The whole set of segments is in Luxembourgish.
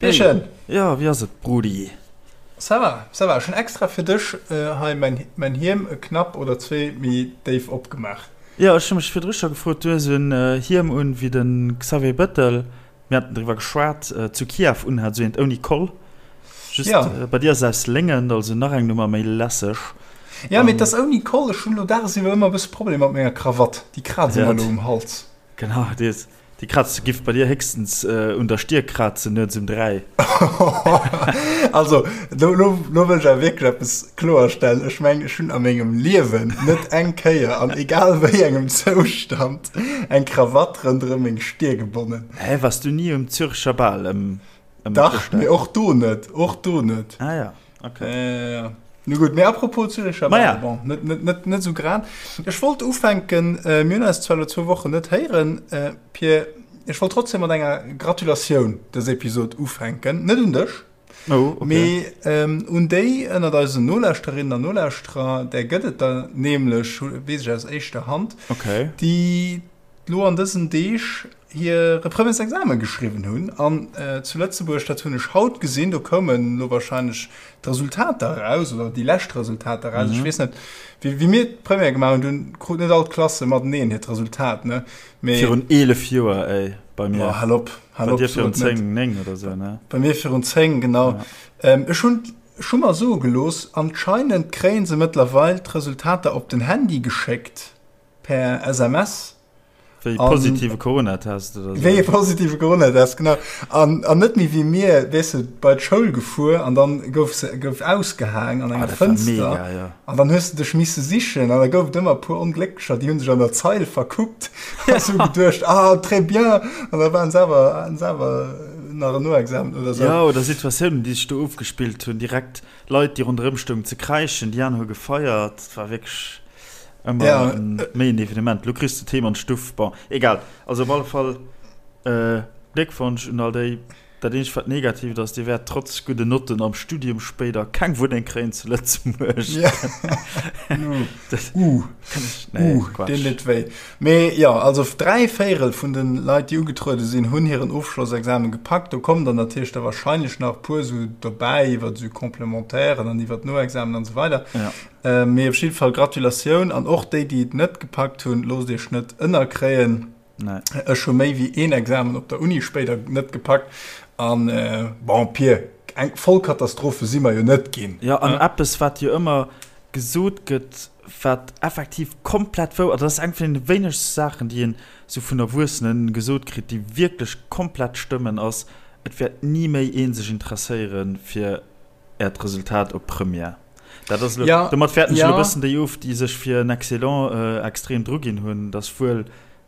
Hey. Jo, wéi ass et, Brudi? Ça va, ça va. Ech hunn extra fir dech hei mäin Hiem e Knapp oder zwee méi déif opgemaach. Jo, ech hu mech virdru scho gefrot, du hues en Hiem un wéi de Xavier Bettel, mir haten driwwer geschwat, zu Kiew unhat, esou eent ouni Koll. Just bei dir ass et aus Léngen, also nach eng Nummer méi lässeg. Jo, mee et ass ouni Koll. Ech hunn elo dagesiwwer ëmmer e bësse Problemer mat menger Krawatt, déi kraazt ëmmer elo um Hals. Genau, déi ass. Déi Kratze giff bei dir héchstens un der Stier krazen nuets um 3. Also, lo, lo, lo wëll ech awer wierklech eppes kloerstellen. Ech mengen, ech hunn a mengem Liewen net eng Kéier, an egal wéi engem Zoustand, eng Krawatt ronderëm meng Stier gebonnen. Hä, wars du ni um Zürecher Bal ëm, ëm Dach, Chrëschtdag? mee och do net, och do net. Ah ja. Okay. Äh, ja. Nu gut, mee apropos Züricher Maja. Ball, bon, net, net, net, net so grad. Ech wollt ufänken, äh, mir hunn eis zwar lo zwou Wochen net héieren, äh, Pierre, ech wollt trotzdem mat enger Gratulatioun dës Episod ufänken. Net un dech, Oh, okay. mee ähm, un déi ënnert eisen Nolauschterinnen an Nolauschterer, där gëtt et der nämlech, weess ech aus éischter Hand, Okay. déi lo an dësen Deeg hire Premièresexamen geschriwwen hunn an zu Lëtzebuerg, dat hunn ech haut gesinn, do koumen elo wahrscheinlech d'Resultater eraus oder déi lescht Resultater eraus. Ech weess net, wéi wéi mir d'Première gemaach hunn, dunn kruten net all d'Klasse mateneen hiert Resultat, ne? Mee. Virun 11 Joer, ey, bei mir. Oh, hal op, hal op, Bei dir virun 10, 9 oder sou, ne? Bei mir virun 10, genau. Ja. Ech hunn, ech hu mer soe gelooss, anscheinend kréie se mëttlerweil d'Resultater op den Handy geschéckt per SMS. Wéi e positive Coronatest oder sou. Wéi e positive Coronatest, genau. An, an net méi wéi mir, weess de, bei d'Schoul gefuer an dann gouf se, gouf ausgehaang an enger ah, dat war Fënster. Mega, ja. An dann hues de dech misse sichen an da gouf et ëmmer e puer Onglécklecher, déi hu sech an der Zeil verkuckt a sou geduecht, ah, très bien, an da waren se awer, haten se awer nach en Noexamen oder sou. Ja, oder Situatiounen, déi sech do ofgespillt hunn, direkt Leit, déi ronderëm stoungen ze kräischen, déi aner hu gefeiert, et war wierklech. Ëmmer ja. méi en Evenement. Lo kriss de Thema an d'Stuff. Bon, egal. Also op alle Fall äh, Gléckwonsch un all déi. Dat eenzegt wat negatiivt ass, Dir wäert trotz gudden Notten am Studium spéider keng Wunneng kréien zu Lëtzebuerg. Ja. uh. Nee, uh, deen deet wéi. Mee ja, also 3 Véirel vun den Leit, déi ugetruede sinn, hunn hiren Ofschlossexamen gepackt. Do kommen dann natierlech der wahrscheinlech nach e puer sou dobäi iwwer sou Complementairen an iwwer d'Noexamen an esou weider. Ja. Mee op jidde Fall Gratulatioun an och déi, déi et net gepackt hunn, loosst iech net ënnerkréien. Nee. Ech hu méi wéi een Examen op der Uni spéider net gepackt an bon, Pir, eng Vollkatastrophe si mer jo net ginn. Jo, an eppes, wat jo ëmmer gesot gëtt, wat effektiv komplett wouer, dat ass eng vun deene wéinegste Saachen, déi een esou vun Erwuessene gesot kritt, déi wierklech komplett stëmmen, ass, Et wäert ni méi ee sech interesséiere fir Äert Resultat op Première. Dat ass elo, Ja, domat wäerten ech ja. elo e bëssen déi of, déi sech fir en Excellent extrem dru ginn hunn. Dat ass wuel,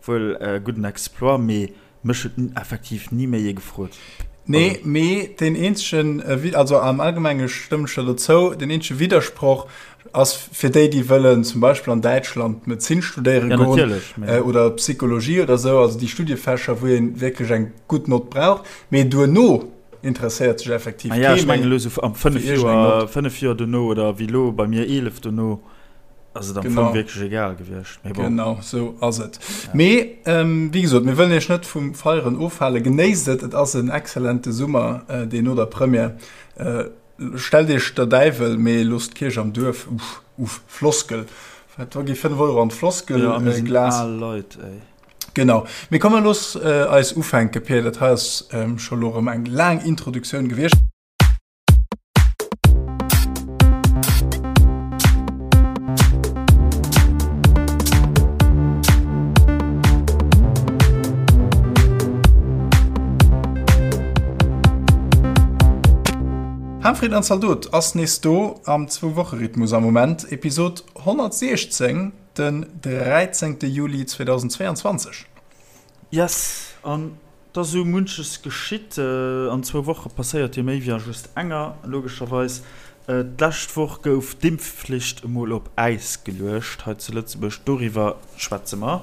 wuel e gudden Exploit, mee mech huet effektiv ni méi ee gefrot. Nee, Also. mee deen eenzegen, also am Allgemenge stëmmen ech der dozou, deen eenzege Widdersproch ass fir déi, déi wëllen zum Beispill an Däitschland Medezin studéiere Ja, goen natierlech, mee. oder Psychologie oder esou, also déi Studiefächer, wou ee wierklech eng gutt Nott brauch. Mee duerno interesséiert sech effektiv Ah ja, kee ech mengen méi elo sou am 5 fir iergendeng Joer, Nott. 5 Joer dono oder wéi elo bei mir 11 dono ass et am Fong Genau. wierklech egal gewiescht. Mee bon. Genau, sou ass et. Ja. Mee ähm, wéi gesot, mir wëllen iech net vum Feieren ofhalen. Genéisst et, et ass en exzellente Summer, äh, deen no der Première. Äh, stellt iech der Däiwel, mee loosst d'Kierch am Duerf. Uff, uff, Floskel. Wat, da gi 5 Euro an d'Floskel, Ja, a mir äh, sinn Glas. al Leit, ey. Genau. Mee komm mer looss eis ufänke, Pir. Dat hei ass scho lo erëm eng laang Introduktioun gewiescht. Harmfried an Zaldot ass nees do am Zwou-Woche-Rhythmus am Moment, Episod 116. Den 13 Juli 2022. Yes, an et ass esou munches geschitt. An zwou Woche passéiert jo méi wéi a just enger, logescherweis. D'lescht Woch gouf d'Impfflicht emol op Äis geluecht hei zu Lëtzebuerg. Doriwwer schwätze mer.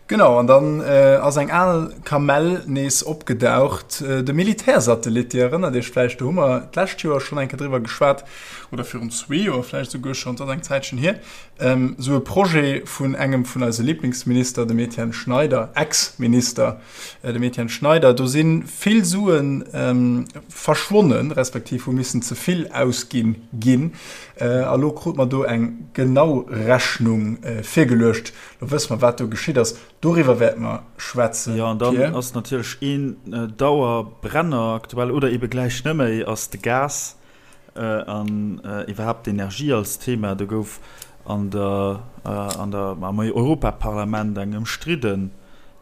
Genau, an dann ass eng al Kamell nees opgedaucht, de Militärsatellit. Dir erënnert Iech vläicht, do hu mer d'lescht Joer schonn eng Kéier driwwer geschwat, oder virun zwee Joer vläicht esouguer schonn, et ass eng Zäitchen hier, esou e Projet vun engem vun eise Liblingsminister, dem Etienne Schneider, Ex-Minister, dem Etienne Schneider. Do si vill Sue verschwonnen, respektiv hu missen ze vill ausginn ginn. A lo krut mer do eng genau Rechnung virgeluecht. Lo wësse mer, wat do geschitt ass. Doriwwer wäerte mer schwätzen, Jo, an dann ass natierlech een Dauerbrenner aktuell, oder ebe gläich net méi, ass de Gas an iwwerhaapt d'Energie als Thema. Do gouf an der, an der, am Europaparlament eng ëmstridden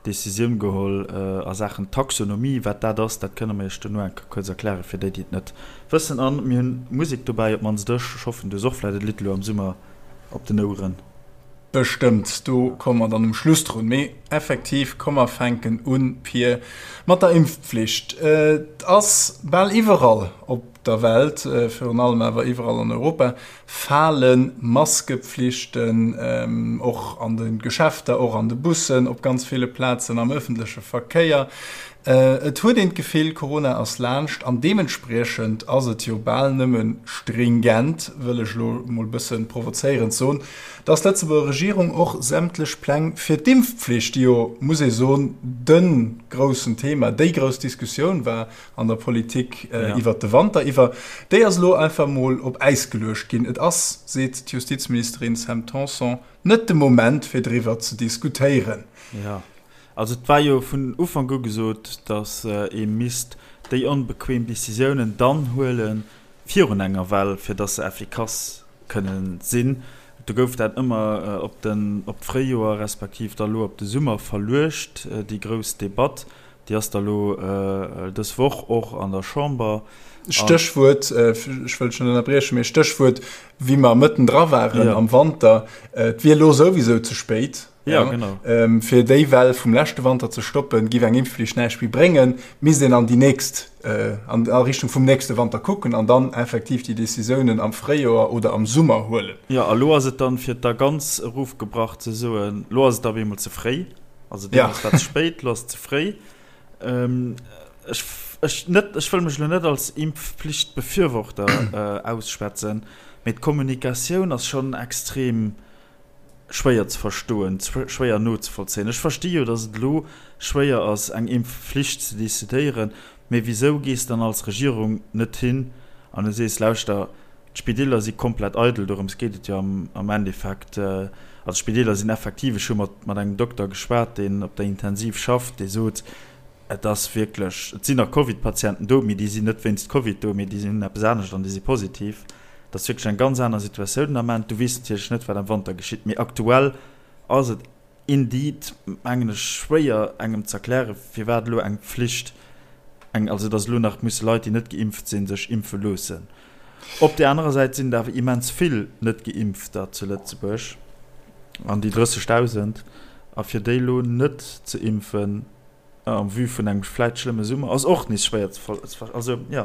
Decisioun geholl a Saachen Taxonomie. Wat dat ass, dat kënne mer Iech duerno eng Kéier kuerz erklären, fir déi, déi et net wëssen. An mir hunn Musek dobäi, op d'mannst ech. Ech hoffen, du hues och vläicht e Lidd elo am Summer op den Oueren. Bestëmmt, do komme mer dann um Schluss drun. Mee effektiv, komm mer fänken un, Pir, mat der Impfpflicht. Et ass bal iwwerall op der Welt, virun allem awer iwwerall an Europa, fale Maskepflichten, och an de Geschäfter, och an de Bussen, op ganz ville Plazen am ëffentleche Verkéier. Et huet een d'Gefill, Corona ass laanscht an deementspriechend ass et jo bal nëmme stringent, wëll ech elo emol e bësse provozéierend soen, dass d'Lëtzebuerger Regierung och sämtlech Pläng fir d'Impfpflicht, déi jo, muss ee soen, de groussen Thema, déi grouss Diskussioun war an der Politik iwwert de Wanter iwwer, déi ass elo einfach emol op Äis geluecht ginn. Et ass, seet d'Justizministerin Sam Tanson, net de Moment fir driwwer ze diskutéieren. Also et war jo vun Ufank u gesot, datt ee misst déi onbequem Decisiounen dann huele virun enger Well, fir datt se effikass kënne sinn. Do gouf dat ëmmer op den, op d'Fréijoer respektiv da lo op de Summer verluecht, déi grouss Debatt. Déi ass da lo dës Woch och an der Chamber. Stéchwuert, ech wëll dech net ënnerbriechen, mee Stéchwuert, wéi mer mëtten dra waren am Wanter, et wier elo souwisou ze spéit. Ja, genau. Ähm, fir déi Well vum leschte Wanter ze stoppen, giff eng Impfflicht näischt méi bréngen, misst een an déi nächst, äh, an a Richtung vum nächste Wanter kucken an dann effektiv déi Decisiounen am Fréijoer oder am Summer huelen. Jo, a lo ass et dann, fir et da ganz erofgebrach ze soen, lo ass et op eemol ze fréi. Also deemools war et ze spéit, lo ass et ze fréi. Ähm, ech, ech net, ech wëll mech lo net als Impfpflichtbefürworter, äh, ausschwätzen, mee d'Kommunikatioun ass schonn extrem schwéier ze verstoen, schwéier nozevollzéien. Ech versti jo, datt et elo schwéier ass, eng Impfflicht ze decidéieren, mee wisou gees dann als Regierung net hin an du sees, lauschter, d'Spideeler si komplett eidel, dorëms geet et jo am Endeffekt. Also d'Spideeler sinn effektiv, ech hu mat mat engem Dokter geschwat, deen op der Intensiv schafft, dee sot, et ass wierklech, et sinn nach Covid-Patienten do, mee déi sinn net wéinst Covid do, mee déi hunn eppes anescht an déi si positiv. Dat ass wierklech eng ganz aner Situatioun den Ament. Du weess natierlech net, wat am Wanter geschitt, mee aktuell ass et indeed, mengen ech, schwéier engem ze erklären, firwat elo eng Pflicht, eng, also datt elo nach musse Leit, déi net geimpft sinn, sech impfe loossen. Op där anerer Säit sinn et awer immens vill Net-Geimpfter zu Lëtzebuerg, an déi 30.000, a fir déi elo net ze impfen, En vue vun engem vläit schlëmme Summer ass och nees schwéier ze ver-, also jo,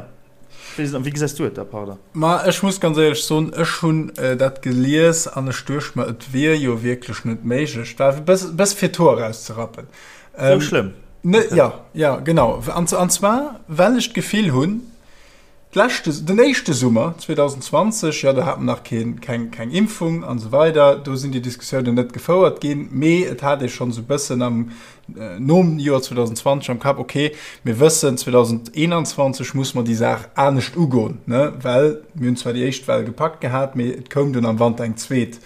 wéi wéi gesäis du et da, pardon? Ma ech muss ganz éierlech soen, ech hunn dat gelies an ech duecht mer, et wier jo wierklech net méiglech, et war e bëss, bëss fir d'Hoer erauszerappen. Sou schlëmm? Ne, jo, jo, genau. An, an zwar well ech d'Gefill hunn, D'leschte, den éischte Summer 2020, jo, do hat mer nach keen, keng, keng Impfung an esou weider, do sinn déi Diskussiounen net gefouert ginn, mee et hat ee schonn esou e bëssen am, nom Joer 2020 am Kapp, okay, mir wëssen, 2021 muss mer déi Saach anescht ugoen, ne, well mir hunn zwar déi éischt Well gepackt gehat, mee et koum dunn am Wanter eng zweet.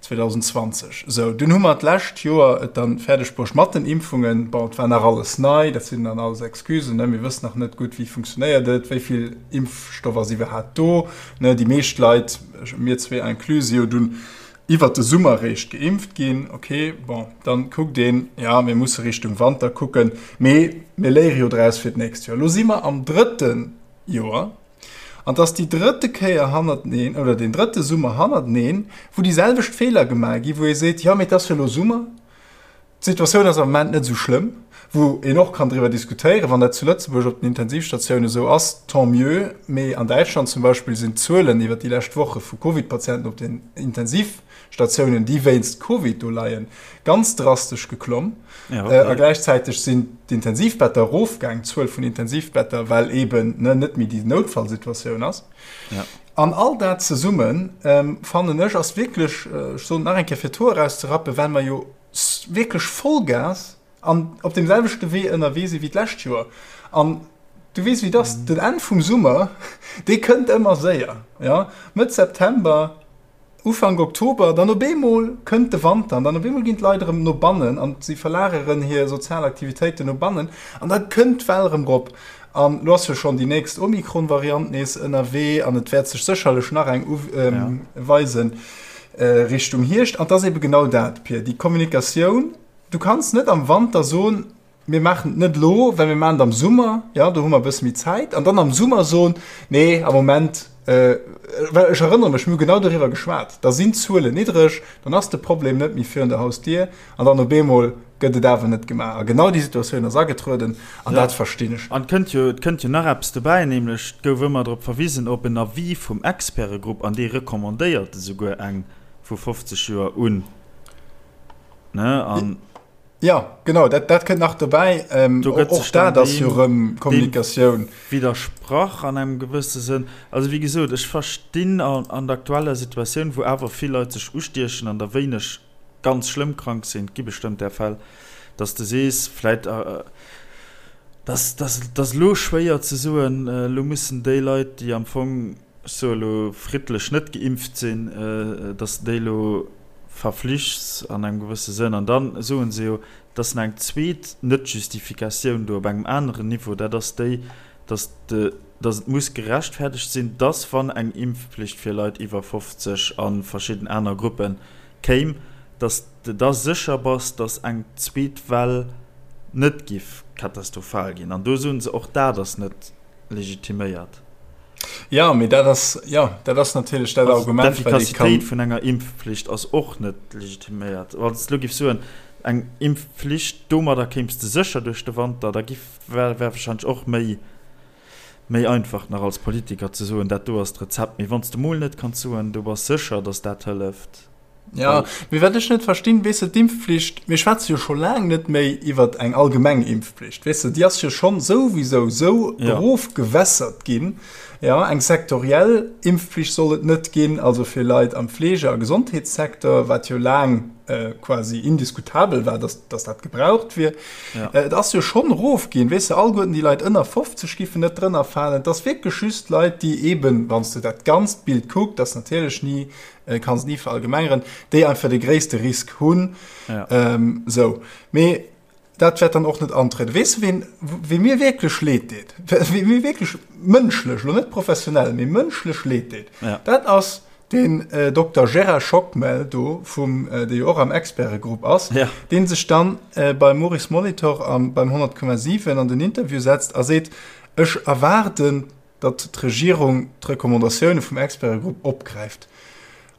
2020. Sou, dunn hu mer d'lescht Joer et dann fäerdeg bruecht mat den Impfungen. Bon, et war nach alles nei, dat sinn dann alles Excusen, ne, mir wëssen nach net gutt, wéi funktionéiert et, wéi vill Impfstoff ass iwwerhaapt do, ne. Déi meescht Leit, mir zwee inclus, si jo dunn iwwert de Summer réischt geimpft ginn. Okay, bon, dann kuckt een, ja, mir musse Richtung Wanter kucken, mee mir léiere jo draus fir d'nächst Joer. Elo si mer am drëtte Joer. An 't ass déi drëtte Kéier hannerteneen, oder deen drëtte Summer hannerteneen, wou déi selwecht Feeler gemaach ginn, wou ee seet, jo, mee 't ass jo elo Summer. D'Situatioun ass am Moment net esou schlëmm, wou een och kann driwwer diskutéieren, wann dat zu Lëtzebuerg op den Intensivstatiounen esou ass, tant mieux, mee an Däitschland zum Beispill sinn d'Zuelen iwwer déi lescht Woche vu Covid-Patienten op den Intensivstatiounen, déi wéinst Covid do leien, ganz drastesch geklomm. A gläichzäiteg sinn d'Intensivbetter erofgaang, d'Zuel vun Intensivbetter, well eeben net méi déi Noutfallsituatioun ass. An all dat zesummen, fannen ech, ass wierklech, ech soen et nach eng Kéier, fir d'Hoer erauszerappen, well mer jo wierklech Vollgas an op deem selwechte Wee ënnerwee si wéi d'lescht Joer. An du weess, wéi et ass, den Enn vum Summer, dee kënnt ëmmer séier, jo, Mëtt September, Ufank Oktober, dann op eemol kënnt de Wanter an dann op eemol ginn d'Leit erëm no bannen an si verlageren hir sozial Aktivitéiten no bannen an da kënnt d'Well erëm rop. An elo ass jo schonn déi nächst Omikron-Variant nees ënnerwee an et wäert sech sécherlech nach eng uweisen Richtung Hierscht. An et ass ebe genau dat, Pir, déi Kommunikatioun. Du kanns net am Wanter soen, Mir maachen et net elo, well mir maachen et am Summer, jo, do hu mer e bësse méi Zäit. An dann am Summer soen, nee, am Moment, well ech erënnere mech, mir hu genau doriwwer geschwat, da sinn d'Zuelen niddreg, dann ass de Problem net méi virun der Hausdier an dann op eemol gëtt et awer net gemaach. A genau déi Situatioun ass agetrueden an dat verstinn ech. An et kënnt jo, et kënnt jo nach eppes dobäi, nämlech et gouf ëmmer drop verwisen op en Avis vum Expertegrupp an dee recommandéiert esouguer eng vu 50 Joer un, ne, an. Jo, genau, dat, dat kënnt nach dobäi. Ähm, Do gëtt och sech dann dat ass jo deem, rëm deem Kommunikatioun. widdersprach an engem gewësse Sënn. Also wéi gesot, ech verstinn an, an der aktueller Situatioun, wou awer vill Leit sech ustiechen an der wéineg ganz schlëmm krank sinn, et gi bestëmmt där Fäll, dass de sees, vläit, dass, dass, dass elo schwéier ze soen, elo mussen déi Leit, déi am Fong, ech soe elo, friddlech net geimpft sinn, dass de déi elo verflichts an engem gewësse Sënn. An da soe se jo, et ass nach eng zweet Net-Justifikatioun do op engem aneren Niveau, dat ass déi, dass de, dass et muss gerechtfertegt sinn, dass wann eng Impfpflicht fir Leit iwwer 50 a verschidden aner Gruppe kéim, dass de da sécher bass, dass eng zweet Well net giff katastrophal ginn. An do soe se, och dat ass net legitiméiert. Ja, mee dat ass, jo, dat ass natierlech dat Also Argument, wat ee kann. d'Effikassitéit vun enger Impfpflicht ass och net legitiméiert. Wann s de elo giffs soen, eng Impfpflicht, domadder kéims de sécher duerch de Wanter, da giff, wär warscheinlech och méi, méi einfach nach als Politiker ze soen, dat do ass d'Rezept. Mee wann s de mol net kanns soen, du bass sécher, datt dat hëlleft, Ja, mee wat ech net verstinn, weess de, d'Impfpflicht, mir schwätze jo scho laang net méi iwwer eng allgemeng Impfpflicht, weess de, déi ass jo schonn souwisou sou Ja. erofgewässert ginn. Ja, eng sektoriell Impfpflicht soll et net ginn, also fir Leit am Fleege a Gesondheetssecteur, wat jo laang quasi indiskutabel war, dass, dass dat gebraucht wier. Ja. Et ass jo schonn erofginn, weess de, alleguerten déi Leit ënner 50 giffen net drënner falen. Et ass wierklech just Leit, déi eeben, wann s de dat ganzt Bild kuckt, ass natierlech ni Kanns et ni verallgemengeren, déi einfach de gréisste Risk hunn. Ja. Ähm, sou. Mee dat wäert dann och net antrieden. Weess du, ween, wee mir wierklech leed deet? Wee mir wierklech mënschlech, lo net professionell, mee mënschlech leed deet? Ja. Dat ass den äh, Dokter Gérard Schockmel do, vum, äh, dee jo och am Expertegrupp ass, Ja. dee sech dann äh, beim Maurice Molitor am, beim 100,7 an den Interview setzt a seet, ech erwaarden datt d'Regierung d'Recommandatioune vum Expertegrupp opgräift.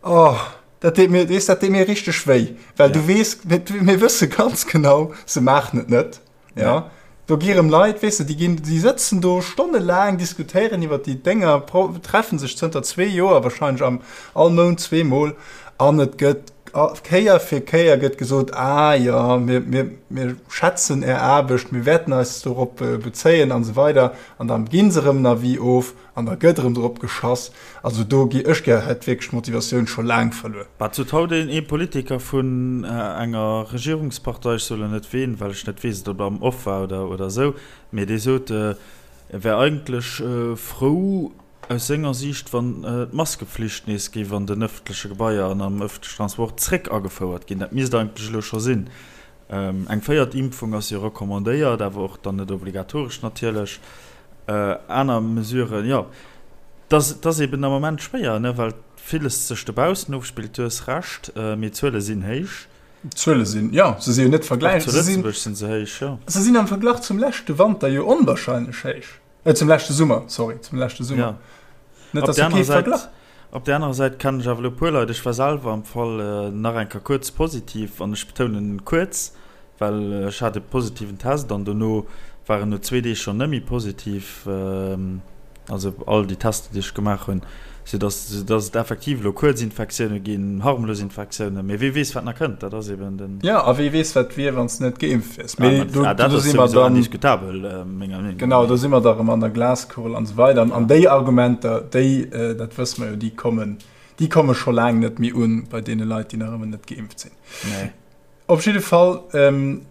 Oh, dat deet mir, weess, dat deet mir richteg wéi, well du weess, mir wësse ganz genau, se maachen et net. Ja. Do gi rëm Leit, weess de, déi ginn, déi sëtzen do stonnelaang, diskutéieren iwwer déi Dénger, treffen sech zënter zwee Joer wahrscheinlech am all Mount zweemol an et gëtt Kéier fir Kéier gëtt gesot, ah jo, mir, mir, mir schätzen Är Aarbecht, mir wäerten eis dorop bezéien an esou weider. An da gi se erëm en Avis of an da gëtt erëm drop geschass. Also do gi ech gär hätt wierklech d'Motivatioun scho laang verluer. Wat sot haut een ee Politiker vun enger Regierungspartei, ech soe lo net ween, well ech net weess, ob et am Off war oder oder esou, mee dee sot, e wär eigentlech frou aus senger Siicht, wann d'Maskeflicht nees géif an den ëffentleche Gebaier an am ëffentlechen Transport zréck agefouert ginn. Dat misst eigentlech elo scho sinn. Eng véiert Impfung ass jo recommandéiert, awer och dann net obligatoresch natierlech. Aner Mesuren, jo, et ass eben am Moment schwéier, ne, well villes sech dobaussen ofspillt. Du hues Recht, mee d'Zuele sinn héich. D'Zuele sinn, jo, se si jo net vergläich. Och zu Lëtzebuerg sinn se héich, jo. Se sinn am Verglach zum leschte Wanter jo onwahrscheinlech héich. Zum leschte Summer, sorry, zum leschte Summer. Ja. Net, dass jo kee Verglach. Op där anerer Säit kennen ech awer elo e puer Leit, ech war selwer am Fall nach eng Kéier kuerz positiv, an ech betounen kuerz. Well ech hat e positiven Test an dono war en no zwee Deeg schonn net méi positiv, also all déi Tester, déi ech gemaach hunn, soudass soudass et effektiv elo Kuerzinfektioune ginn, harmlos Infektiounen, mee wee weess, wat nach kënnt, dat ass eben den. Jo, a wee weess, wat wier, wann s de net geimpft wiers. Mee do, dat ass souwisou indiskutabel, menger Meenung no. Genau, do si mer da erëm an der Glaskugel an esou weider. An déi Argumenter, déi, dat wësse mer jo, déi kommen, déi komme scho laang net méi un bei deene Leit, déi nach ëmmer net geimpft sinn. Nee. Op jidde Fall,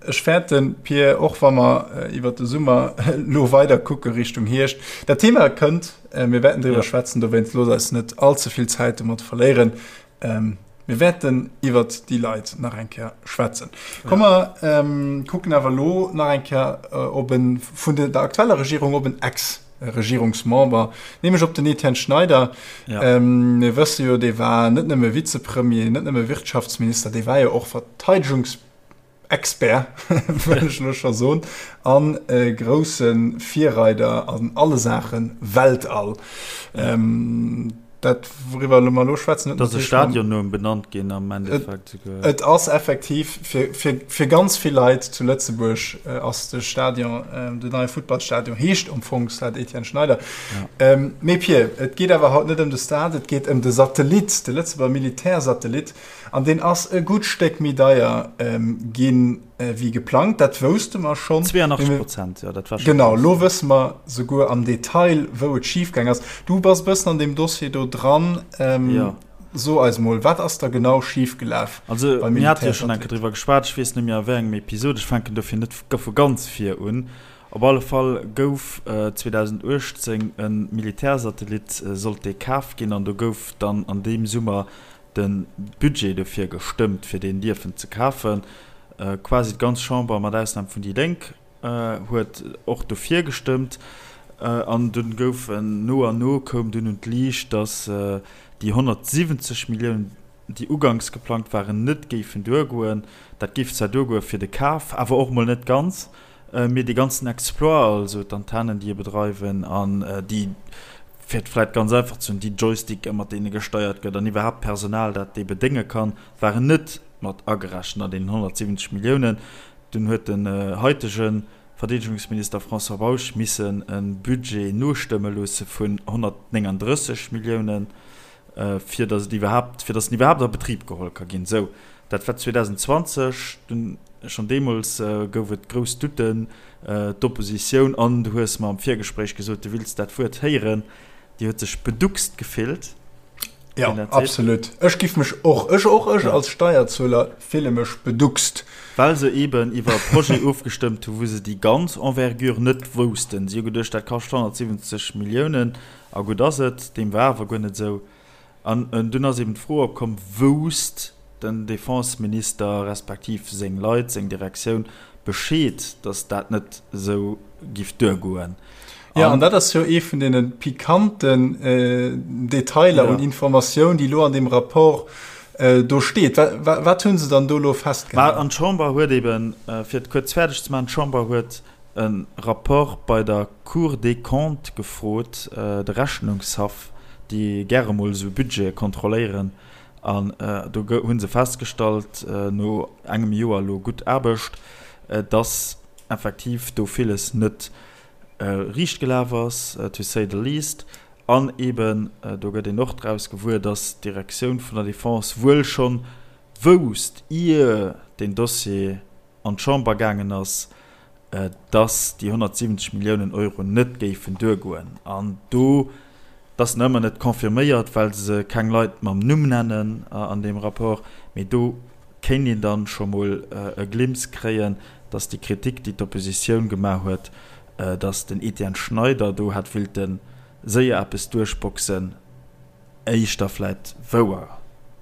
ech fäerten, Pir, och wa mer iwwert de Summer elo weider kucke Richtung Hierscht, dat Thema kënnt, mir wäerten driwwer schwätzen, dowéinst loosst eis net all ze vill Zäit domat verléieren. Mir wäerten iwwert déi Leit nach eng Kéier schwätzen. Komm mer kucken awer elo nach eng Kéier op e vun der aktueller Regierung, op en Ex. Regierungsmember, nämlech op den Etienne Schneider. Ja. Ähm, mir wësse jo, dee war net nëmme Vizepremier, net nëmme Wirtschaftsminister, dee war jo och Verteidigungsexpert, wëll ech lo scho soen, an e grousse Virreider an alle Saache Weltall. Ja. Ähm, dat wouriwwer mer elo schwätzen, huet natierlech. Et ass e Stadion no em benannt ginn am Endeffekt souguer. Et ass effektiv fir, fir, fir ganz vill Leit zu Lëtzebuerg ass de Stadion, den neie Futtballstadion heescht am Fong Stade Etienne Schneider. Ja. Mee Pir, et geet awer haut net ëm de Stade, et geet ëm de Satellit, de Lëtzebuerger Militärsatellit an deen ass e gutt Stéck méi deier ginn. Wéi geplangt, dat wousste mer schonn. 82 Prozent, jo, dat war scho Genau, elo wësse mer souguer am Detail, wou et schifgaang ass. Du bass e bëssen an deem Dossier do dran. Jo. So eis mol, wat ass da genau schifgelaf Also, beim mir hate jo schonn eng Kéier driwwer geschwat, ech weess net méi a wéi engem Episod, ech fänken dofir net vu ganz vir un. Op alle Fall gouf 2018 e Militärsatellit, sollt dee kaf ginn, an do gouf dann an deem Summer de Budget dofir gestëmmt, fir deen dierfen ze kafen. Quasi d'ganz Chamber, mat Ausnam vun déi Lénk, huet och dofir gestëmmt. An dunn gouf no an no koum dunn un d'Liicht, datt déi 170 Milliounen, déi uganks geplangt waren, net géifen duergoen. Dat géif zwar duergoe fir de Kaf, awer och mol net ganz. Mee dee ganzen Exploit, also d'Antennen, déi e bedreiwen an déi, fir et vläicht ganz einfach ze hunn, déi Joysticke mat deene gesteiert gëtt an iwwerhaapt d'Personal, dat dee bedénge kann, waren net mat agerechent an deenen 170 Milliounen. Dunn huet den haitege Verdeedegungsminister François Bausch missen e Budget nostëmme loosse vun 139 Milliounen, fir datt et iwwerhaapt, fir datt en iwwerhaapt a Betrib geholl ka ginn. Sou, dat war 2020. Dunn, schonn deemools gouf et grouss Doutten. D'Oppositioun, an du hues mer am Virgespréich gesot, du wills dat Wuert héieren, déi huet sech beduckst gefillt. Ja, absolut. Ech giff mech och, ech och, ech als Steierzueler fille mech beduckst. Well se eben iwwer e Projet ofgestëmmt hu wou se déi ganz Envergure net woussten. Si hu geduecht, dat kascht 170 Milliounen a gutt ass et. Deem war awer guer net esou. An dunn ass eben d'Fro opkomm, Wousst den Defenseminister respektiv seng Leit, seng Direktioun Bescheed, datt dat net esou giff duergoen? Jo, an dat ass jo ee vun deene pikanten Detailer un Informatioun, déi elo an deem Rapport do steet. Wat hu se dann do elo festgehalen? An d'Chamber huet eben, fir et kuerz fäerdeg ze maachen, d'Chamber huet e Rapport bei der Cour des Comptes gefrot, de Rechnungshaff, déi gäre mol esou Budgete kontrolléieren. An do hu se festgestallt, no engem Joer elo gutt Aarbecht, dass effektiv do villes net riicht gelaf ass, to say the least. An eeben, do gëtt een och draus gewuer, dass d'Direktioun vun der Defense wuel schonn wousst, ier deen Dossier an d'Chamber gaangen ass, dass déi 170 Milliounen Euro net géifen duergoen. An do, dat ass nach ëmmer net confirméiert, well se keng Leit mam Numm nennen an deem Rapport, mee do kéint een dann scho mol e Glimps kréien, dass déi Kritik, déi d'Oppositioun gemaach huet, dass den Etienne Schneider do hätt willte séier eppes duerchboxen, éischter vläit wouer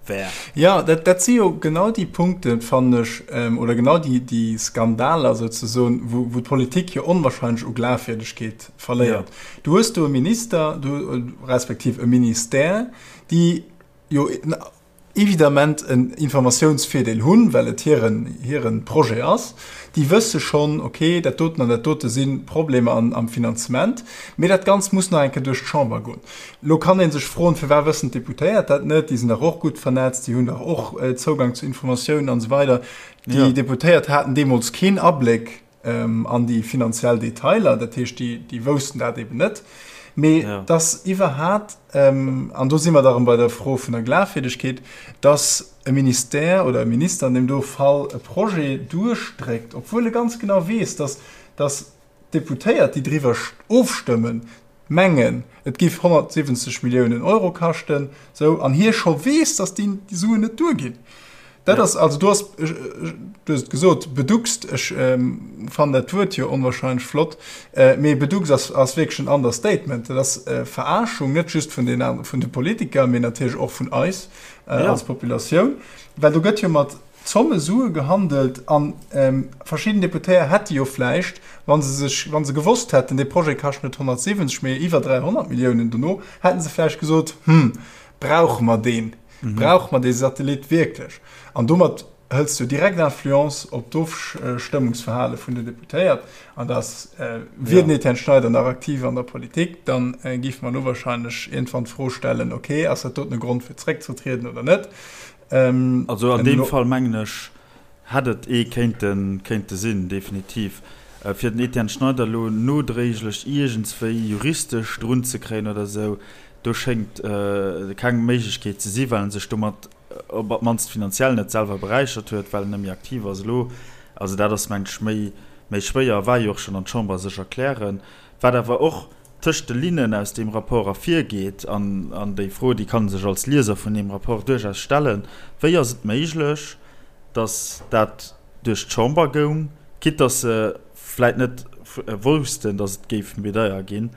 wär. Jo, dat si jo genau déi Punkten, fannen ech, oder genau déi Skandaler souzesoen, wou d'Politik jo onwahrscheinlech u Glafwierdegkeet verléiert. Du hues do e Minister, respektiv e Ministère, déi jo. Évidemment en Informatiounsvirdeel hunn, well et hiren, hiren Projet ass. Déi wësse schonn, okay, dat doten an dat dote si Problemer an, am Finanzement, mee dat Ganzt muss nach eng Kéier duerch d'Chamber goen. Elo kann ee sech froen, firwat wëssen d'Deputéiert dat net? Déi sinn dach och gutt vernetzt, déi hunn dach och Zougang zu Informatiounen an esou weider. Déi Deputéiert haten deemools keen Abléck an déi finanziell Detailer, dat heescht, déi, déi woussten dat eben net. Mee ja. dass iwwerhat, ähm, an do si mer da rëm bei der Fro vun der Glafwierdegkeet, dass e Ministère oder e Minister an deem do Fall e Projet duerchdréckt, obwuel e ganz genau weess, dass, dass d'Deputéiert, déi driwwer ofstëmmen, mengen, et géif 170 Milliounen Euro kaschten, sou, an hie scho weess, dass déi Suen net duerginn. Dat ass, also do ass, du hues et gesot, beduckst, ech fannen dat Wuert jo onwahrscheinlech flott, mee beduckst ass, ass wierklech en Understatement. Dat ass Verarschung, net just vun den, vun de Politiker, mee natierlech och vun eis als Populatioun, well do gëtt jo mat Zomme Sue gehandelt an verschidden Deputéier hätte jo vläicht, wa se sech, wa se gewosst hätten, dee Projet kascht net 170, mee iwwer 300 Milliounen dono, hätte se vläicht gesot, Hm, brauche mer deen? Brauche mer dee Satellit wierklech? An domat hëls du direkt Influence op d'Ofstëmmungsverhale vun den Deputéiert. An dass, wier den Etienne Schneider nach aktiv an der Politik, da géife mer elo wahrscheinlech iergendwann d'Fro stellen, okay, ass dat doten e Grond fir zeréckzetrieden oder net? Also an deem Fall mengen ech, hätt et ee kéinte kéinte sinn, definitiv. Fir den Etienne Schneider elo nodréiglech iergendswéi juristesch drun ze kréien oder esou, do schéngt keng Méiglechkeet ze si, well en sech domat op d'mannst finanziell net selwer beräichert huet, well en net méi aktiv ass elo. Also dat ass, mengen ech, méi méi schwéier a war jo och schonn an d'Chamber sech erklären. Wat awer och tëscht de Linnen aus deem Rapport ervirgeet, an, an déi Fro, déi kann e sech als Lieser vun deem Rapport duerchaus stellen, Wéi ass et méiglech, datt dat duerch d'Chamber goung, quitte datt se vläit net woussten, datt et géif méi deier ginn,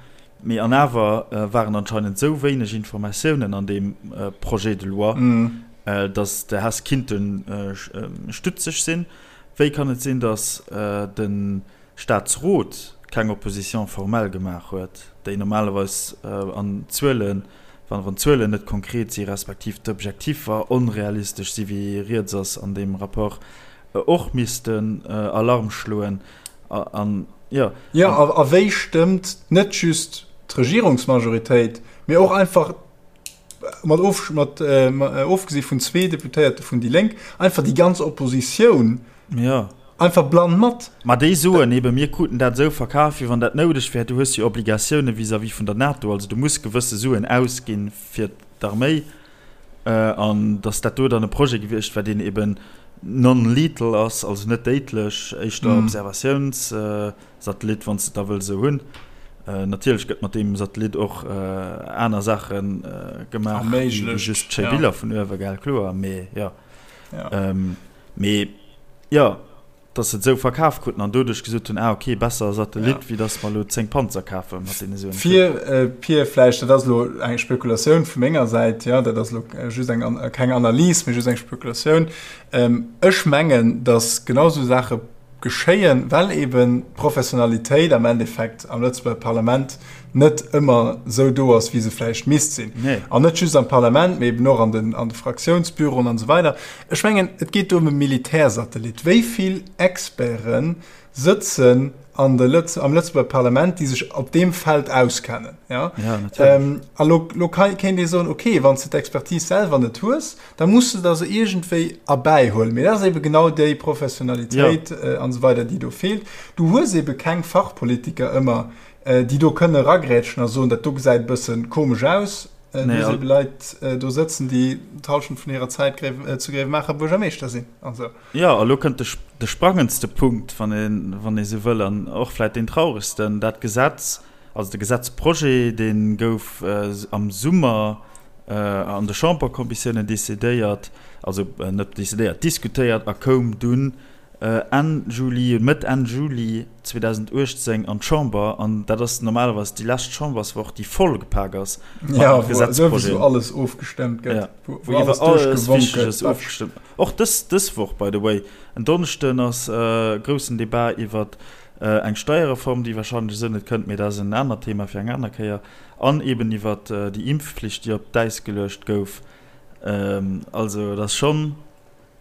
mee an awer waren anscheinend esou wéineg Informatiounen an deem Projet de loi, datt de Hess kinnte stutzeg sinn. Wéi kann et sinn, datt de Staatsrot keng Opposition formelle gemaach huet, déi normalerweis an Zuelen, wann wann d'Zuelen net konkret si respektiv d'Objektiffer onrealistesch si wéi rieds ass an deem Rapport, och missten Alarm schloen an, jo. Jo, a wéi stëmmt net just d'Regierungsmajoritéit, mee och einfach mat of, mat ofgesi vun zwee Deputéierte vun déi Lénk, einfach déi ganz Oppositioun ja. einfach blann mat. Ma déi soen eben, mir kruten dat esou verkaf, wéi wann dat noudeg wär. Du hues jo Obligatioune vis-à-vis vun der NATO, also du muss gewësse Suen ausginn fir d'Arméi, an datt dat do dann e Projet gewiescht wär, deen eben non-lethal ass, also net déidlech, éischter Observatiouns. Satellit, wann s de et da wëlls esou hunn. Natierlech gëtt mat deem Satellit och aner Saache gemaach wéi just schéi Biller vun uewe, gell, kloer, mee jo. Mee jo, datt se et esou verkaf kruten an doduerch gesot hunn, ah ok, besser e Satellit, wéi datt mer elo 10 Panzer kafe mat deene Suen. Fir, Pir, vläicht, dat ass elo eng Spekulatioun vu menger Säit, jo, dat ass elo just eng, keng Analys, mee just eng Spekulatioun, ech mengen, datt genau esou Saache geschéien, well eben d'Professionalitéit am Endeffekt am Lëtzebuerger Parlament net ëmmer esou do ass, wéi se vläicht misst sinn. Nee. An net just am Parlament, mee eben och an den, an de Fraktiounsbüroen an esou weider. Ech mengen, et geet do ëm e Militärsatellit. Wéi vill Experte sëtzen an de Lëtz-, am Lëtzebuerger Parlament, déi sech op deem Feld auskennen? Ja? Ja, natierlech. Ähm, a lo, lo kéint ee soen, okay, wann s de d'Expertise selwer net hues, da muss du der se iergendwéi erbäihuelen. Mee dat ass ebe genau déi Professionalitéit ja. an esou weider, déi do feelt. Du hues ebe keng Fachpolitiker ëmmer, déi do kënne eragrätschen a soen, dat do gesäit e bësse komesch aus. Du nee, hues ebe Leit do sëtzen, déi d'Hallschent vun hirer Zäit zu Gréiwemaacher Buergermeeschter sinn an esou. Jo, a lo kënnt de, de sprangendste Punkt, wann ee, wann ee sou wëll, an och vläit deen trauregsten, Dat Gesetz, also de Gesetzprojet, dee gouf am Summer an de Chamberkommissiounen decidéiert, also net decidéiert, diskutéiert a koum dunn Enn Juli, Mëtt, Enn Juli 2018 an d'Chamber. An dat ass normalerweis déi lescht Chamberswoch, déi voll gepak ass mat Gesetzprojeten. Wou alles ofgestëmmt gëtt, wou iwwer alles Wichteges ofgestëmmt. Och dës, dës Woch, by the way, en Donneschden ass e groussen Debat iwwert eng Steierreform, déi wahrscheinlech esou net kënnt, mee dat ass en anert Thema fir eng aner Kéier. An eben iwwert déi Impfpflicht, déi op d'Äis geluecht gouf. Also et ass schonn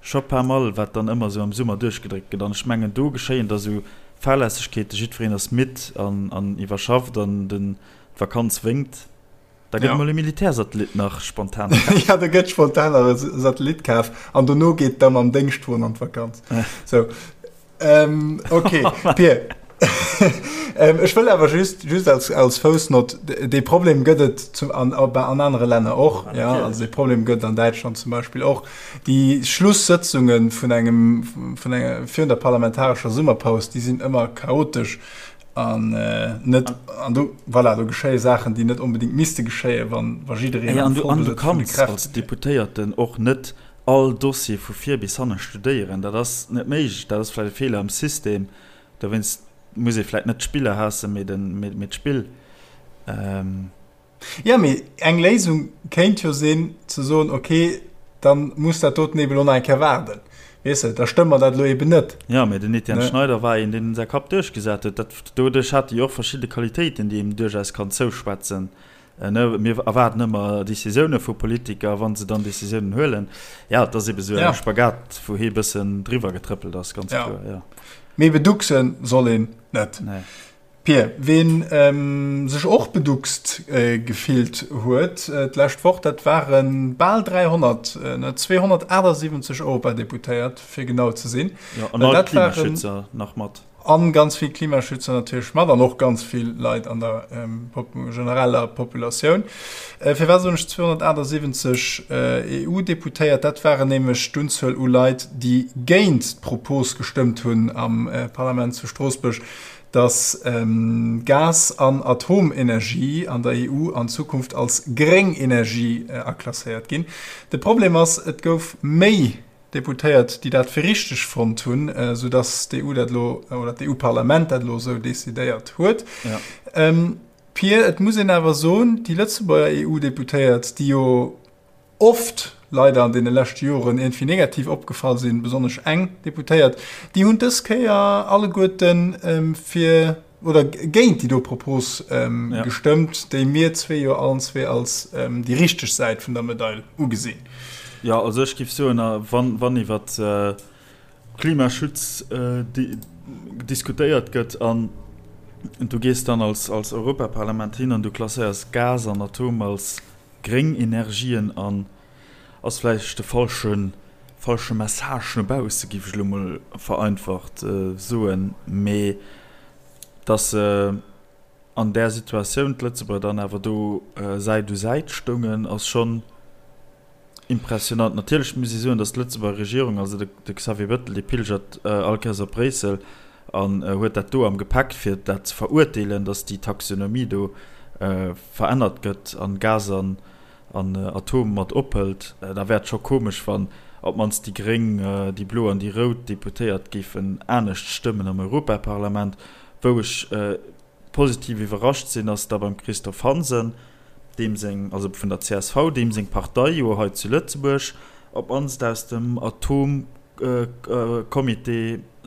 scho pas mal, wat dann ëmmer esou am Summer duerchgedréckt gëtt. An ech mengen, do geschéien da sou Fahrlässegkeeten, jiddwereen ass midd an an iwwerschafft an den d'Vakanz wénkt. Da gëtt emol e Militärsatellit nach spontan kaf. Ja, da gëtt spontan nach e Satellit kaf an dono geet da mam Déngschtwon an d'Vakanz. Sou. Ähm, okay, Pir. ähm, ech wëll awer just, just als, als Foussnott, dee Problem gëtt et zum, an, an anere Länner och. Ja, ja, also dee Problem gëtt an Däitschland zum Beispill och. Déi Schlusssëtzunge vun engem, vun enger, virun der parlamentarescher Summerpaus, déi sinn ëmmer chaotesch an äh, net, an do, voilà, do geschéie Saachen, déi net onbedéngt misste geschéien, wann, wa jiddereen am Vollbesëtz vun de Kräfte wär. Als Deputéierten och net all Dossier vu vir bis hanne studéieren, dat ass net méiglech, dat ass vläicht e Feeler am System, dowéinst muss ee vläicht net d'Spiller haassen, mee den, mee d'Spill. Jo, mee eng Léisung kéint jo sinn ze soen, ok, da muss dat doten eben elo nach eng Kéier waarden, weess de, da stëmme mer dat elo eben net. Jo, mee den Etienne Schneider war een, deen säi Kapp duerchgesat huet. Dat, doduerch hat e jo och verschidde Qualitéiten, déi een duerchaus kann zouschwätzen. Mir erwaarden ëmmer Decisioune vu Politiker, wa se dann Decisiounen huelen. Jo, et ass ebe sou e Spagat, wou hie e bëssen driwwer getrëppelt ass, ganz kloer, jo. Mee beduckse soll een net. Nee. Pir, ween sech och beduckst gefillt huet d'lescht Woch, dat ware bal 300, 278 Europadeputéiert, fir genau ze sinn. Jo, an all d'Klimaschützer nach mat. An ganz vill Klimaschützer natierlech mat an och ganz vill Leit an der genereller Populatioun. Firwat soen ech 278 EU-Deputéiert? Dat waren nämlech d'Unzuel u Leit, déi géint d'Propos gestëmmt hunn am Parlament zu Stroossbuerg, datt Gas an Atomenergie an der EU an Zukunft als gréng Energie aklasséiert ginn. De Problem ass, et gouf méi Deputéiert, déi dat fir richteg fonnt hunn, esou datt d'EU dat elo, oder d'EU-Parlament dat elo esou decidéiert huet. Ja. Pir, et muss een awer soen, déi Lëtzebuerger EU-Deputéiert, déi jo oft leider an deene leschte Joren iergendwéi negativ opgefall sinn, besonnesch eng Deputéiert, déi hunn dës Kéier alleguerten fir oder géint déi do Propos gestëmmt, déi mir zwee jo allen zwee als déi richteg Säit vun der Medail ugesinn. Jo, also ech géif soen, wann iwwer Klimaschutz diskutéiert gëtt an du gees dann als Europaparlament hin an du klasséiers Gas an Atom als gréng Energien an, ass vläicht de falsche falsche Message no bausse, géif ech elo mol vereinfacht soen, mee datt se an där Situatioun, d'Lëtzebuerger dann awer do Säit u Säit stoungen, ass schonn impressionant. Natierlech muss ee soen, datt d'Lëtzebuerger Regierung, also de Xavier Bettel, dee pilgert all Kéiers op Bréissel an huet dat do am Gepäck, fir dat ze verurteelen, datt déi Taxonomie do verännert gëtt an Gas an an Atom mat ophëlt, da wär et scho komesch, wann op d'mannst déi gréng, déi blo an déi rout Deputéiert géifen anescht stëmmen am Europaparlament. Wou ech positiv iwwerrascht sinn, ass da beim Christophe Hansen, deem seng, also vun der csv, deem seng Partei jo hei zu Lëtzebuerg op d'mannst aus dem Atomcomité,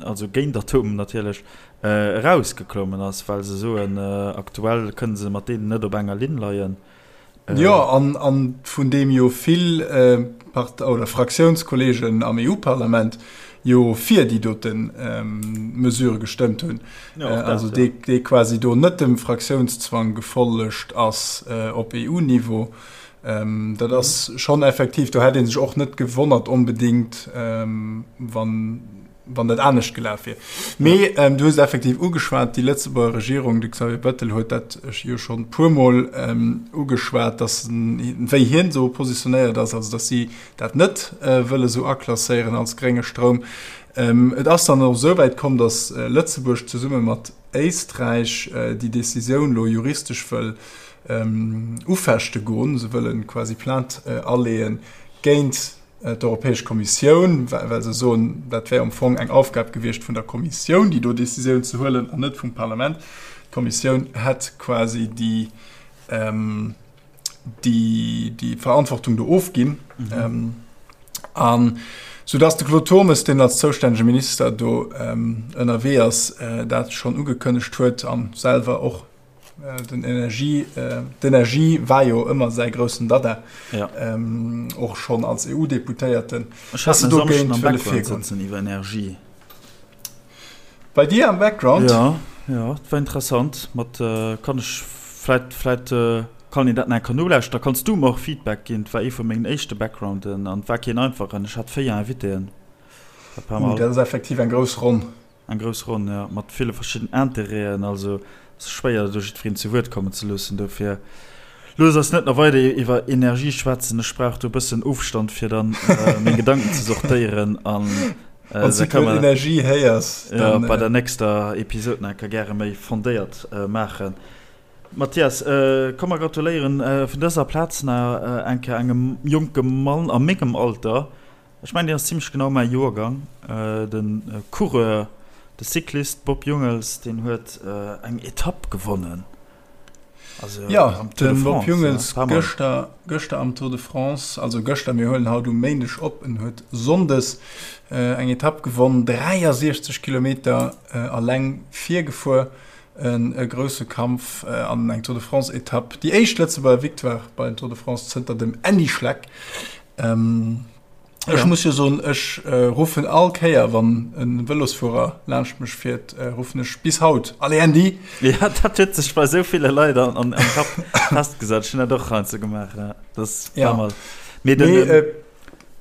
also géint Atom natierlech, erausgeklommen ass, well se soen, aktuell kënne se mat deenen net op enger Linn leien. Jo, an, an vun deem jo vill Part oder Fraktiounskolleegen am EU-Parlament jo fir déi dote Mesure gestëmmt hunn. Ja, och dat, also dee, dee quasi do net dem Fraktiounszwang gefollegt ass op EU-Niveau. Dat ass schonn effektiv, do hätt ee sech och net gewonnert onbedéngt, wann, wann dat anescht gelaf wier. Mee du hues et effektiv ugeschwat, déi Lëtzebuerger Regierung, de Xavier Bettel huet dat jo schonn e puermol ugeschwat, datt wéi hien esou positionéiert ass, also datt si dat net wëlle sou aklasséieren als grénge Stroum. Et ass dann och esou wäit komm, datt Lëtzebuerg zesumme mat Éisträich déi Decisioun elo juristesch wëll ufechte goen. Se wëlle quasi Plainte aleeë géint d'Europäesch Kommissioun, well se soen, dat wär am Fong eng Aufgab gewiescht vun der Kommissioun, déi do Décisioun ze huelen an net vum Parlament. D'Kommissioun hätt quasi déi, déi, déi Verantwortung do ofginn. Mhm. An soudass de Claude Turmes, deen als zoustännege Minister do ënnerwee ass, dat schonn ugekënnegt huet a selwer och. Den Energie, d'Energie war jo ëmmer säi groussen Dada, och schonn als EU-Deputéierten. Ech hat en Samschden am Background sëtzen iwwer Energie. Bei dir am Background? Jo, jo, et war interessant. Mat kann ech vläit, vläit kann een dat nach eng Kéier nolauschteren. Da kanns du mer och Feedback ginn. Et war ee vu mengen éischte Backgrounden an et war keen einfachen. Ech hat 4 Invitéen. Uh, dat ass effektiv eng grouss Ronn. Eng grouss Ronn, jo, mat ville verschidden Interêten. Also et ass schwéier, do jiddwereen zu Wuert kommen ze loossen. Dofir looss eis net nach weider iwwer Energie schwätzen. Ech brauch do e bëssen Ofstand, fir dann meng Gedanken ze sortéieren. An Wann s du d'Wuert Energie héiers, dann. Bei der nächster Episod nach eng Kéier gäre méi fondéiert maachen. Mathias, komm mer gratuléieren vun dëser Plaz nach eng Kéier engem jonke Mann a mengem Alter, Ech mengen, deen ass zimlech genau mäi Joergang. De Coureur, de Cyclist Bob Jungels, deen huet eng Etapp gewonnen. Also jo, am Tour de France. Bob Jungels gëschter, gëschter am Tour de France, also gëschter, mir huelen haut um Méindeg op, en huet sonndes eng Etapp gewonn, 63 Kilometer alleng virgefuer, e grousse Kampf an eng Tour de France-Etapp, déi éischt Lëtzebuerger Victoire bei den Tour de France zënter dem Andy Schleck. Ähm, ech ja. muss jo soen, ech äh, ruffen all Kéier, wann en Vëlosfuerer laanscht mech fiert, äh, ruffen ech bis haut, Allez Andy! Ja, dat huet sech bei sou ville Leit an, an, am Kapp festgesat. Ech hunn dat och heiansdo gemaach. Ja. Dat ass ja. mal. Mee den, nee, äh,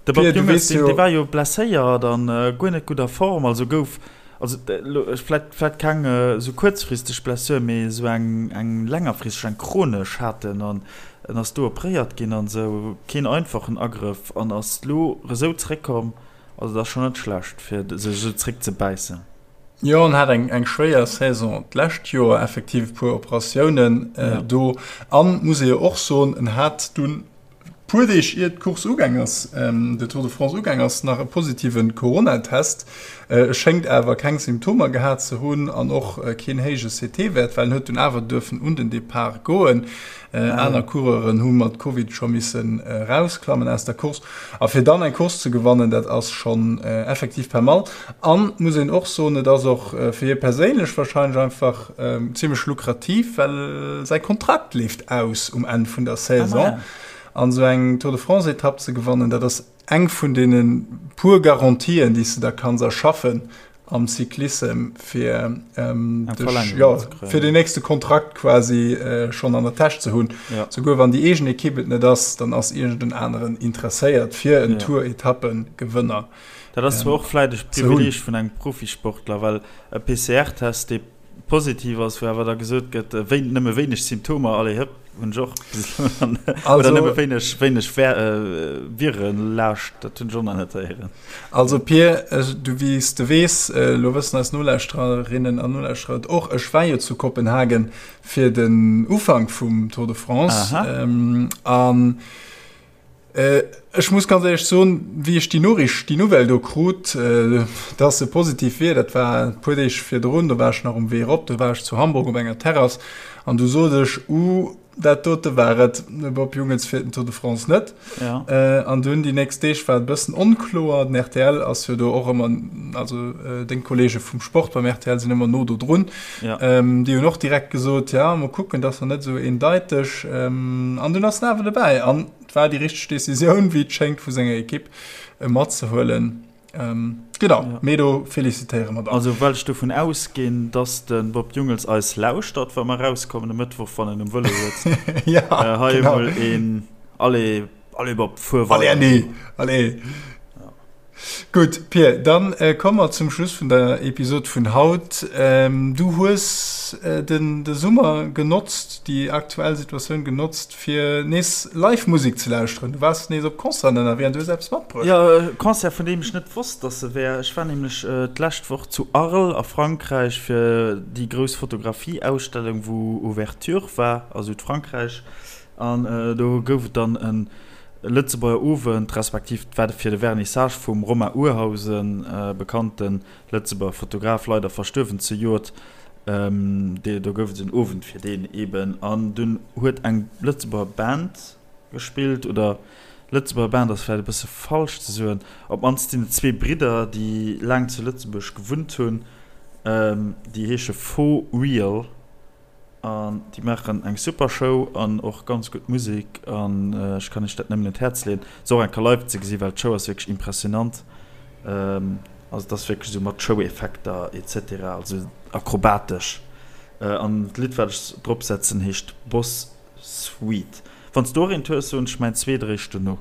de Bob Pierre, du Jungels, weess deen, jo. dee war jo blesséiert an äh, guer net gutt a Form, also gouf Also vläit vläit keng esou kuerzfristeg Blessure, mee esou eng eng längerfristeg, eng chronesch hat en an en ass do opréiert ginn an esou. Keen einfachen Agrëff an ass lo esou zréckkomm. Also dat ass schonn net schlecht fir sech esou zréck ze bäissen. Jo, en hat eng eng schwéier Saison d'lescht Joer, effektiv e puer Operatiounen do an, muss ee jo och soen, en hat dunn Puer Deeg ier d'Course ugaang ass, de Tour de France ugaang ass, nach e positive Corona-Test. E schéngt awer keng Symptomer gehat ze hunn an och keen héije CT-Wäert, well en huet dunn awer duerfen un den Depart goen. Aner Coureuren hu mat Covid scho missen erausklammen aus der Course. A fir dann eng Course ze gewannen, dat ass schonn effektiv pas mal. An, muss een och soen, et ass och fir hie perséinlech warscheinlech einfach zimmlech lukrativ, well säi Kontrakt leeft aus um Enn vun der Saison. An esou eng Tour de France-Etapp ze gewannen, dat ass eng vun deene puer Garantien, déi s de der kanns erschaffen am Cyclissem, fir dech, jo, fir den nächste Kontrakt quasi schonn an der Täsch ze hunn. Souguer wann déi eegen Ekipp et net ass, dann ass iergend en aneren interesséiert, fir en Tour-Etappengewënner Dat ass zwar och vläit e Privileeg vun engem Profisportler, well e PCR-Test, dee positiv ass, wou awer da gesot gëtt, wéi, nëmme wéineg Symptomer, allez hëpp, hunn ech och bis elo nach net, oder nëmme wéineg, wéineg Virenlaascht, dat hunn ech och nach net héieren. Also Pir, du, wéi s de weess, elo wëssen eis Nolauschtererinnen an Nolauschterer et och, ech war jo zu Kopenhagen fir den Ufank vum Tour de France an Ech muss ganz éierlech soen, wéi ech déi Noriicht, déi Nouvelle do krut, dass e positiv wier, dat war e puer Deeg virdrun, do war ech nach um Wee erop, do war ech zu Hamburg op enger Terrass an du sot ech, Uh, dat dote war et, de Bob Jungels fiert den Tour de France net. An dunn déi nächst Deeg war et e bëssen onkloer. Den rtl ass jo do och ëmmer, also deng Kolleege vum Sport beim rtl sinn ëmmer no do drun, déi hunn och direkt gesot, ja, mol kucken, dat ass nach net esou eendeiteg. An dunn ass en awer dobäi. An Et war déi richteg Decisioun, wéi et schéngt, vu senger Ekipp e matzehuelen. Genau, ja. Mee do felicitéiere mer dann. Also well ech dovun ausginn, dass de Bob Jungels eis lauschtert, wa mer erauskommen e Mëttwoch, wann en um Vëlo sëtzt. Ja, äh, hei genau. emol een Allez, allez Bob, fuer weider. Allez Andy, allez. Ja. Gutt, Pir, dann komme mer zum Schluss vun der Episod vun haut. Du hues den de Summer genotzt, déi aktuell Situatioun genotzt, fir nees live Musek ze lauschteren. Du waars nees op Concerten ënnerwee an du hues eppes matbruecht. Jo, e Concert, vun deem ech net wosst, dass e wär. Ech war nämlech d'lescht Woch zu Arles a Frankräich fir déi grouss Fotografie-Ausstellung, wou Ouverture war a Südfrankräich. An do gouf et dann e Lëtzebuerger Owend, respektiv et war fir de Vernissage vum Romain Urhausen, bekannte Lëtzebuerger Fotograf, leider verstuerwen zejoert. Do gouf et en Owend fir deen eben. An dunn huet eng Lëtzebuerger Band gespillt, oder Lëtzebuerger Band ass vläicht e bësse falsch ze soen, op d'mannst sinn et zwee Bridder, déi laang zu Lëtzebuerg gewunnt hunn, déi heesche Faux Real. An déi maachen eng super Show an och ganz gutt Musek an ech kann iech dat nëmmen un d'Häerz leeën, se och eng Kéier live ze gesinn, well d'Show ass wierklech impressionant. Also et ass wierklech esou mat Show-Effekter et cetera, also akrobatesch. An d'Lidd wat ech drop setzen heescht Boss Suite. Wann s du och eent hues, soen ech mäin zweet eréischt dono.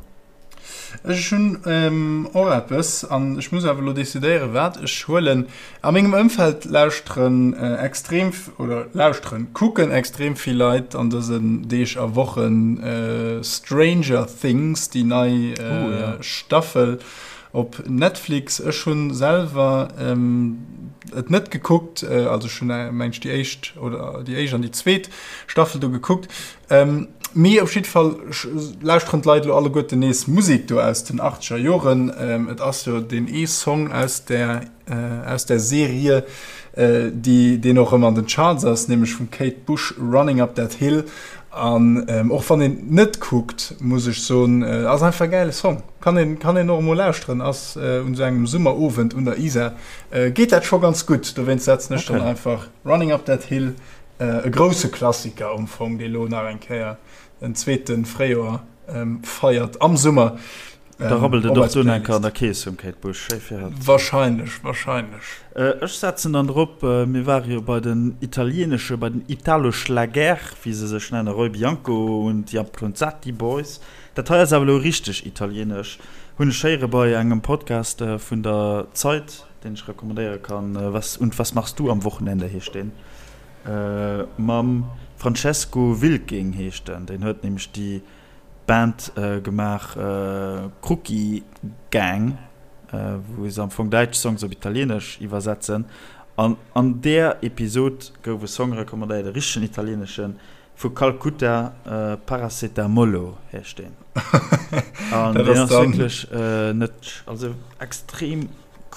Ech hunn och eppes an ech muss awer elo decidéieren, wat ech huelen. A mengem Ëmfeld lauschteren extrem, oder lauschteren, kucken extrem vill Leit an dësen Deeg a Wochen Stranger Things, déi nei Staffel op Netflix. Ech hunn selwer et net gekuckt, also ech hunn meng ech déi éischt oder déi éischt an déi zweet Staffel do gekuckt. Mee op jidde Fall lauschteren d'Leit elo alleguerten nees Musek do aus den achtzeger Joren. Et ass jo deen ee Song aus där, aus där Serie, déi, deen och ëmmer an den Charts ass, nämlech vum Kate Bush, Running Up That Hill. An och wann een net kuckt, muss ech soen, ass einfach e gäile Song. Kann een, kann een och emol lauschteren. Ass un esou engem Summerowend un der Isar, geet dat scho ganz gutt. Dowéinst setzen ech dann einfach Running Up That Hill E grousse Klassiker am Fong, dee lo nach eng Kéier en zweete Fréijoer feiert am Summer. Da rabbelt et och dunn eng Kéier an der Kees vum Kate Bush. Schéi fir hatt. Wahrscheinlech, wahrscheinlech. Ech setzen dann drop, mir ware jo bei den italieenesche, bei den Italo-Schlager, wéi se sech nennen, Roy Bianco und die Appronzati Boys. Dat hei ass awer elo richteg italieenesch, hunn ech héiere bei engem Podcast vun der Zeit, deen ech recommandéiere kann, Was und was machst du am Wochenende heescht deen, mam Francesco Wilking heescht en, deen huet nämlech déi Band gemaach Krucki Gang, wou se am Fong däitsch Songs op Italieenesch iwwersetzen. An an där Episod gouf e Song recommandéiert, e richtegen italieeneschen, Vu Calcutta, Paracetamolo heescht deen. An deen ass wierklech net, also extrem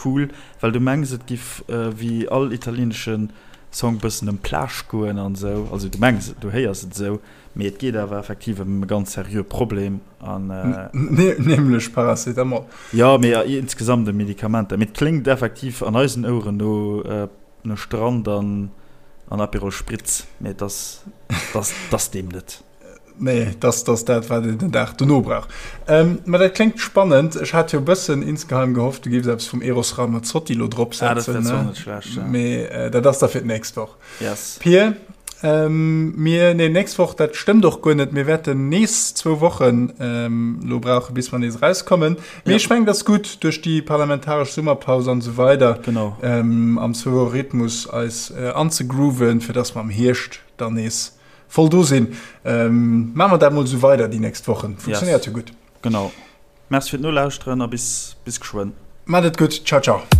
cool, well du mengs et giff wéi all italienesche Song bëssen ëm Plage goen an esou, also du mengs et, du héiers et esou, mee et geet awer effektiv ëm e ganz seriöe Problem an. Nämlech Paracetamol. Jo, mee insgesamt ëm Medikamenter, mee et kléngt effektiv an eisen Oueren no. No Strand an an Aperol Spritz, mee et ass, et ass deem net. Nee, et ass, et ass dat, wat een den Dag dono brauch. Mä dat kléngt spannend. Ech hat jo e bëssen insgeheim gehofft, du géifs eppes vum Eros Ramazzotti elo drop setzen. Ah, dat wär zwar net schlecht, ja. Mee dat ass da fir d'nächst Woch. Yes. Pir, Mir, nee, nächst Woch, dat stëmmt och guer net. Mir wäerten nees zwou Wochen elo brauchen, bis mer nees erauskommen. Mee ech mengen, dat ass gutt duerch déi parlamentaresch Summerpaus an esou weider. Genau. Am Zwou-Woche-Rhythmus eis anzegrooven, fir dass mer am Hierscht dann nees voll do sinn. Maache mer dat mol esou weider déi nächst Wochen. Funktionéiert jo gutt. Genau. Merci fir d'Nolauschteren a bis, bis geschwënn. Maat et gutt. Ciao, ciao.